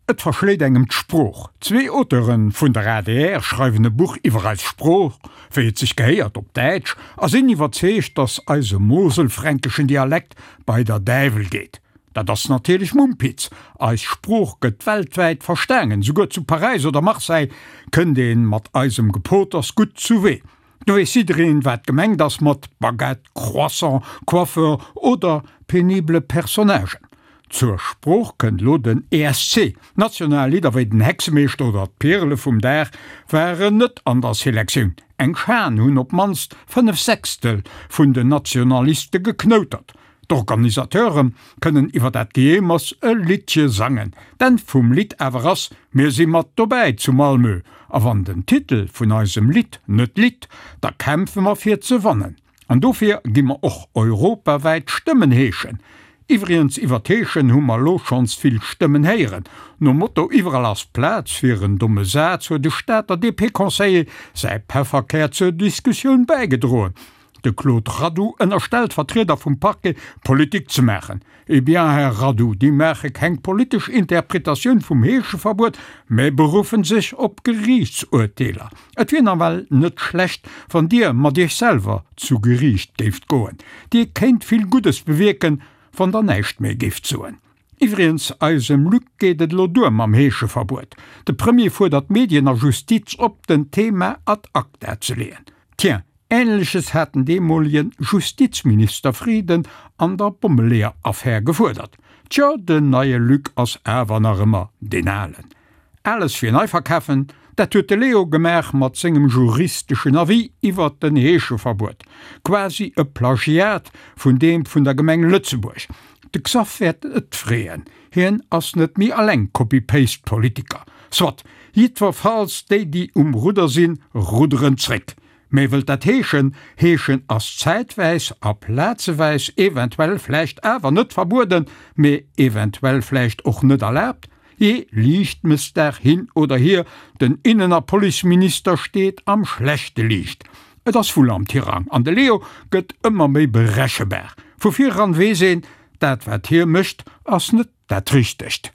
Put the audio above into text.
Et verschléit engem d'Sprooch. Zwee Auteure vun der adr schreiwen e Buch iwwer eis Sprooch, wéi et sech gehéiert, op Däitsch, a sinn iwwerzeegt, datt eise moselfränkeschen Dialekt bei der Däiwel geet. Dat ass natierlech Mumpitz. Eis Sprooch gëtt weltwäit verstaangen, souguer zu Paräis oder Marseille kënnt ee mat eisem Gepoters gutt zuwee. Do weess jiddereen, wat gemengt ass mat Baguette, Croissant, Coiffeur oder penible Personnagen. Zur Sprooch kënnt elo den ESC. National Lidder wéi den Hexemeeschter oder d'Pirele vum Dag waren net an der Selektioun. Eng Schan hunn op d'mannst 5 Sechstel vun den Nationaliste geknoutert. D'Organisateure kënnen iwwer dat Gejeemers e Liddche sangen. D'Enn vum Lidd awer ass, Mir si mat dobäi zu Malmö, a wann den Titel vun eisem Lidd net litt, da kämpfe mer fir ze wannen. An dofir gi mer och europawäit Stëmmen heeschen. Iwwrigens, iwwer d'Heeschen hu mer lo schonns vill Stëmmen héieren. Nom Motto Iwwerall ass Plaz fir en domme Saz huet e Stater DP-Conseiller säi Pefferkär zur Diskussioun bäigedroen. De Claude Radoux ënnerstellt Vertrieder vum Parquet, Politik ze maachen. Eh bien, Här Radoux, déi maache keng politesch Interpretatioun vum Heescheverbuet, mä beruffen sech op Geriichtsurteeler. Et wier nawell net schlecht, wann Dir mat Iech selwer zu Geriicht géift goen. Dir kéint vill Guddes bewierken, wann Der näischt méi géift soen. Iwwrigens, eisem Luc geet et elo duer mam Heescheverbuet. De Premier fuerdert Medien a Justiz op, den Thema ad acta ze leeën. Tiens, Ähnleches hat den deemolegen Justizminister Frieden an der Bommeleeër-Affär gefuerdert. Tjo, den neie Luc ass awer nach ëmmer deen alen. Ales fir nei verkafen, dat huet de Leo gemaach mat sengem juristeschen Avis iwwert den Heescheverbuet. Quasi e Plagiat vun deem vun der Gemeng Lëtzebuerg. De Xaph wäert et freeën, hien ass net méi alleng Copy-Paste-Politiker. Soit, jiddwerfalls déi déi um Rudder sinn, rudderen zréck. Mee wëllt dat heeschen, heeschen ass zäitwäis a plazeweis eventuell vläicht awer net verbueden, mee eventuell vläicht och net erlaabt? Jee, Liichtmëssdag hin oder hier, den Innen a Policeminister steet am schlechte Liicht. Et ass wull am Tirang an de Leo gëtt ëmmer méi berechebar. Vu vireran weess een, dat wat hie mécht ass net dat Richtegt.